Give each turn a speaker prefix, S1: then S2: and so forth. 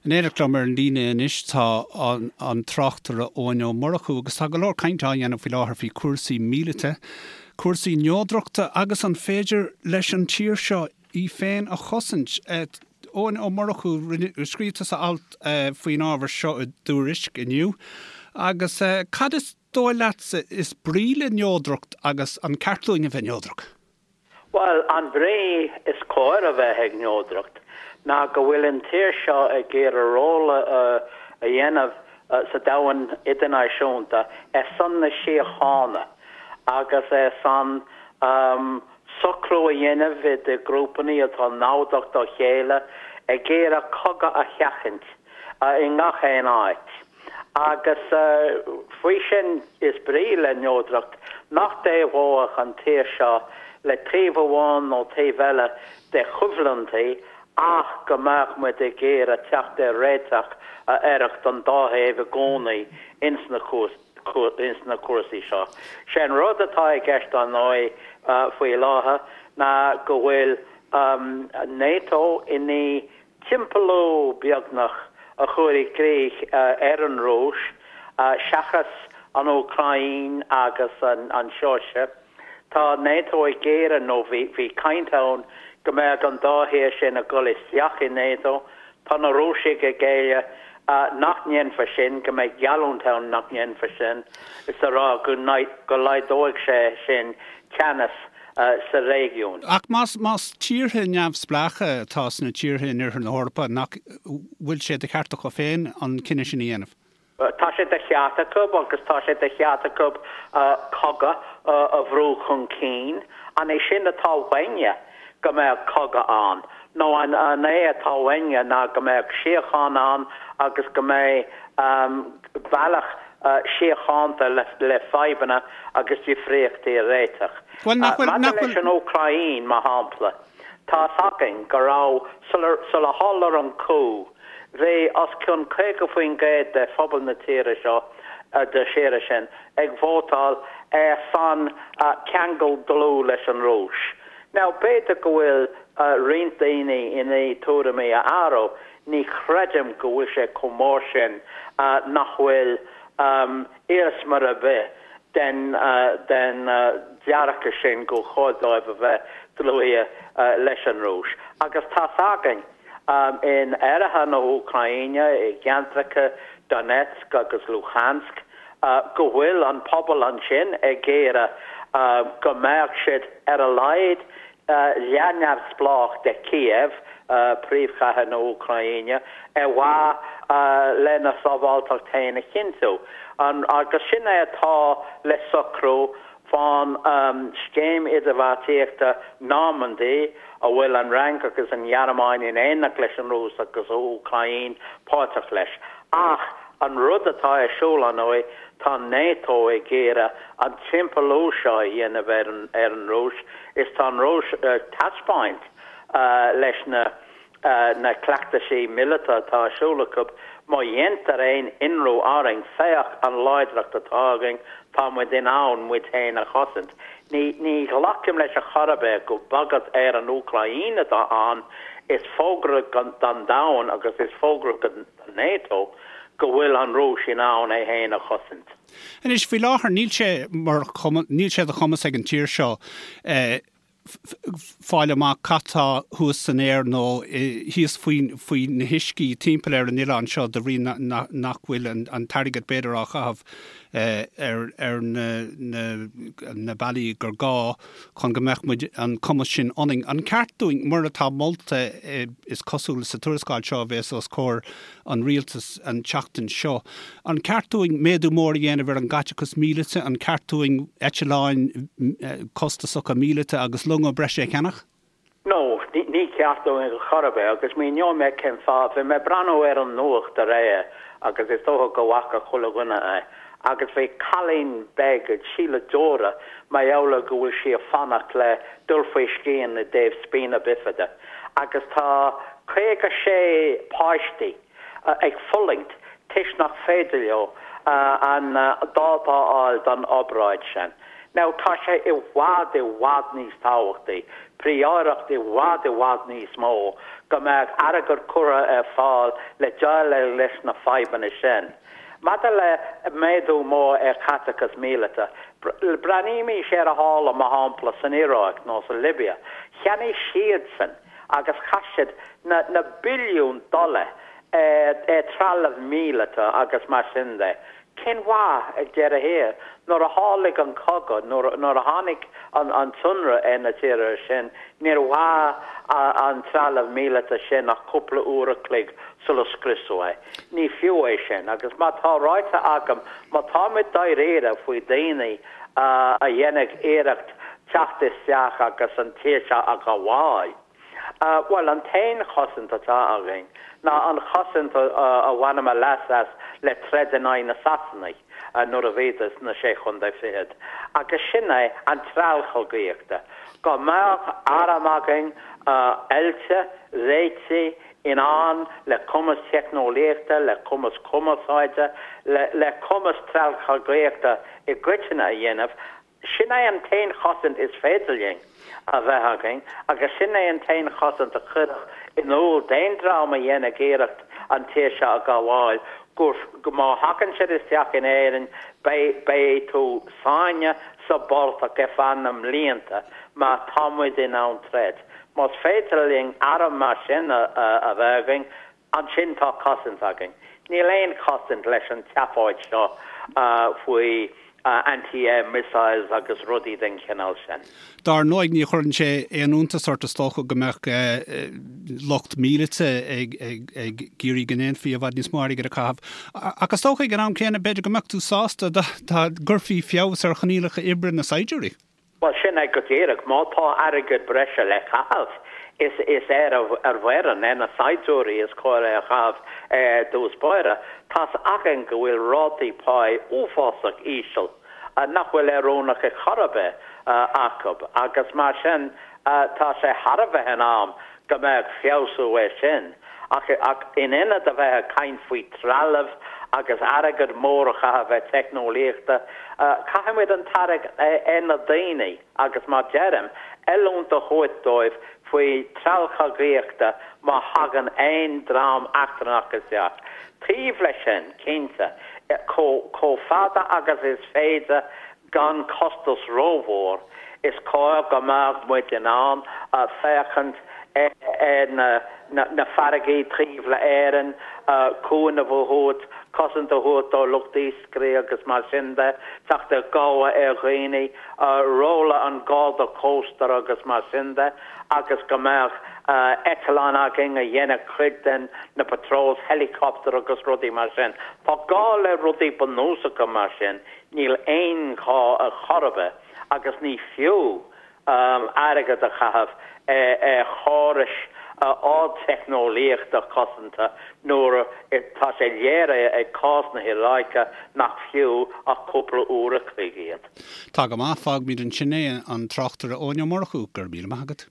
S1: In éineacht liom ar an líne anois tá an tráchtaire Eoin Ó Murchú agus tá go leor cainte á dhéanamh faoi láthair faoi chúrsaí míleata, cúrsaí neodrachta agus an féidir leis an tír seo í féin a chosaint. Eoin Ó Murchú, scríobh tusa alt faoin ábhar seo i dTuairisc inniu agus cad is dóigh leatsa is brí le neodracht agus an ceart dúinn a bheith neodrach?
S2: Bhuel, an bhrí is cóir a bheith ag neodracht ná go bhfuil an tír seo ag iarraidh ról a dhéanamh sa domhan idirnáisiúnta ar son na síochána agus ar son socrú a dhéanamh idir grúpanna atá namhdach dá chéile ag iarraidh cogadh a sheachaint i ngach aon áit. Agus faoi sin is brí le neodracht nach dtaobhódh an tír seo le taobh amháin nó taobh eile de choimhlintí ach go mbeadh muid ag iarraidh teacht ar réiteach a oirfeadh don dá thaobh i gcónaí ins na cúrsaí seo. Sé an rud atá i gceist ar ndóigh faoi láthair ná go bhfuil NATO i ndiaidh timpeallú beagnach a chur i gcrích ar an Rúis, seachas an Úcráin agus an tSeoirsia. Tá NATO ag iarraidh, nó bhí caint ann go mbeadh an dá thír sin ag dul isteach i NATO. Tá na Rúisigh ag éileamh nach ndéanfar sin, go mbeidh geallúint ann nach ndéanfar sin, is a rá go laghdóidh sé sin teannas sa réigiún.
S1: Ach más más tíortha neamhspleácha atá sna tíortha in oirthear na hEorpa, nach bhfuil sé de cheart acu féin an cinneadh sin a dhéanamh?
S2: Tá sé de cheart acu agus tá sé de cheart acu cogadh a bhrú chun cinn. An é sin atá uainne, go mbeadh cogadh ann? Nó an é atá uainne ná go mbeadh síocháin ann agus go mbeidh bealach síochánta le fadhbanna agus difríochtaí a réiteach.
S1: Bhuel, nach bhfuil,
S2: nach
S1: bhfuil.
S2: Maidir leis an Úcráin, mar shampla, tá's againn go raibh, sular tharla an coup, bhí os cionn 50% de phobal na tíre seo, de tíre sin, ag vótáil ar son ceangal dlúth leis an Rúis. Now, b'fhéidir go bhfuil roinnt daoine i ndiaidh tuairimí a athrú, Ní chreidim go bhfuil sé chomh mór sin nach bhfuil iarsma ar bith den den dearcadh sin gur chóir dóibh a bheith dlúithe leis an Rúis. Agus tá's againn in oirthear na hÚcráine, i gceantracha Donetsk agus Luhansk, go bhfuil an pobal ansin ag iarraidh go mbeadh siad ar a laghad leath-neamhspleách de Kiev, príomhchathair na hÚcráine, ar mhaithe lena sábháilteacht féin a chinntiú. Agus sin é atá le socrú fán scéim idirbheartaíochta Normandy, a bhfuil an Fhrainc agus an Ghearmáin in éineacht leis an Rúis agus an Úcráin páirteach leis. Ach an rud atá ar siúl, ar ndóigh, tá NATO ag iarraidh an timpeallú seo a dhéanamh ar an Rúis, Is tá an Rúis ag taispeáint leis na na cleachtaisí míleata atá ar siúl acu, má dhéantar aon ionradh orainn, féach an láidreacht atá againn, tá muid in ann muid féin a chosaint. Ní ní ghlacaim leis ar chor ar bith gur bagairt ar an Úcráin atá ann, is fógra don domhan agus is fógra do NATO go bhfuil an Rúis in ann é féin a chosaint.
S1: Anois, faoi láthair, níl sé mar níl sé de chumas ag an tír seo fáil amach cad tá thuas san aer nó thíos faoi faoi na huiscí timpeall ar an oileán seo de bhrí nach bhfuil an t-airgead b'fhéidir á chaitheamh ar ar na na na bealaí gur gá chun go mbeadh muid an cumas sin ionainn. An ceart dúinn, mar atá molta is cosúil sa tuarascáil seo a bhéas os comhair an rialtas an tseachtain seo. An ceart dúinn méadú mór a dhéanamh ar an gcaiteachas míleata? An ceart dúinn eitleáin costasacha míleata agus longa breise a cheannach?
S2: No, ní ceart dúinn ar chor ar bith agus míneoidh mé cén fáth. Bhí mé ag breathnú ar an nuacht aréir agus is dócha go bhfaca chuile dhuine é agus bhí cailín beag ag sileadh deora mar gheall ar go bhfuil sí ag fanacht le dul faoi scian i dtaobh spina bifida. agus tá 56 páistí ag fulaingt toisc nach féidir leo an dáta a fháil don obráid sin. Now, tá sé i bhfad, i bhfad níos tábhachtaí, príóireacht i bhfad, i bhfad níos mó, go mbeadh airgead curtha ar fáil le déileáil leis na fadhbanna sin. Maidir le méadú mór ar chaiteachas míleata, breathnaímís ar a tharla, mar shampla, san Iaráic nó sa Libia. Cheannaigh siadsan agus chaith siad na na billiúin dollar ar trealamh míleata agus mar sin de. Cén mhaith ag deireadh thiar? Nuair a tharlaigh an cogadh, nuair a tháinig an t-ionradh ar na tíortha sin, níor mhair an trealamh míleata sin ach cúpla uair a chloig sula scriosadh é. Ní fiú é sin. Agus mar tá ráite agam, má táimid dáiríre faoi daoine a dhéanfaidh iarracht teacht isteach agus an tír seo a ghabháil, Bhuel, an t-aon chosaint atá againn ná an chosaint a bhaineamar leas as le troid in aghaidh na Sasanaigh nuair a bhíodar sna Sé Chontae Fichead, agus sin é an treallchogaíochta. Go mbeadh arm againn oilte, réitithe, in ann, le cumas teicneolaíochta, le cumas cumarsáide, le cumas treallchogaíochta i gcoitinne a dhéanamh, Sin é an t-aon chosaint is féidir linn a bheith againn agus sin é an t-aon chosaint a chuirfeadh in iúl d'aon dream a dhéanfadh iarracht an tír seo a ghabháil gur, má thagann siad isteach in Éirinn, beidh, beidh tú sáinnithe sa bportach ar feadh na mblianta mar tá muid in ann troid. Más féidir linn arm mar sin a bheith againn, Ansin tá cosaint againn. Níl aon chosaint leis an tseafóid seo faoi anti-air missiles agus rudaí den chineál sin.
S1: Dar ndóigh, ní chuireann sé aon iontas ort is dócha go mbeadh lucht míleata ag iarraidh go ndéanfaí i bhfad níos mó airgid a chaitheamh. Ach is dócha ag an am céanna, b'fhéidir go mbeadh tú sásta dá gcuirfí feabhas ar choinníollacha oibre na saighdiúirí.
S2: Bhuel, sin é go díreach. Má tá airgead breise le caitheamh, is is ar ar bhfoireann, ar na saighdiúirí is cóir é a chaitheamh ar dtús báire. Tá's againn go bhfuil rátaí páí uafásach íseal, nach bhfuil oiriúnach ar chor ar bith, acu agus mar sin tá sé thar a bheith in am go mbeadh feabhsú air sin. Ach ach in ionad a bheith ag caint faoi trealamh agus airgead mór a chaitheamh ar teicneolaíochta, caithfimid an t-airgead ar na daoine agus mar deirim, oiliúint a thabhairt dóibh faoi treallchogaíochta má thagann aon dream eachtrannach isteach. Taobh leis sin, cinnte, chomh fada agus is féidir Gan costas rómhór, is cóir go mbeadh muid in ann féachaint ar na farraigí taobh le Éirinn, cúnamh a thabhairt, cosaint a thabhairt do lucht iascairí agus mar sin de, teacht i gcabhair ar dhaoine, róla an Garda Cósta agus mar sin de, agus go mbeadh eitleáin againn a dhéanfadh cuid den na patrols, helicopter agus rudaí mar sin. Tá gá le rudaí bunúsacha mar sin. Níl aon ghá ar chor ar bith agus ní fiú airgead a chaitheamh ar chórais ardteicneolaíochta cosanta nuair atá sé léirithe ag cás na hIaráice nach fiú ach cúpla uair a chloig iad.
S1: Tá go maith, fágfaimid ansin é, an tráchtaire Eoin Ó Murchú, go raibh míle maith agat.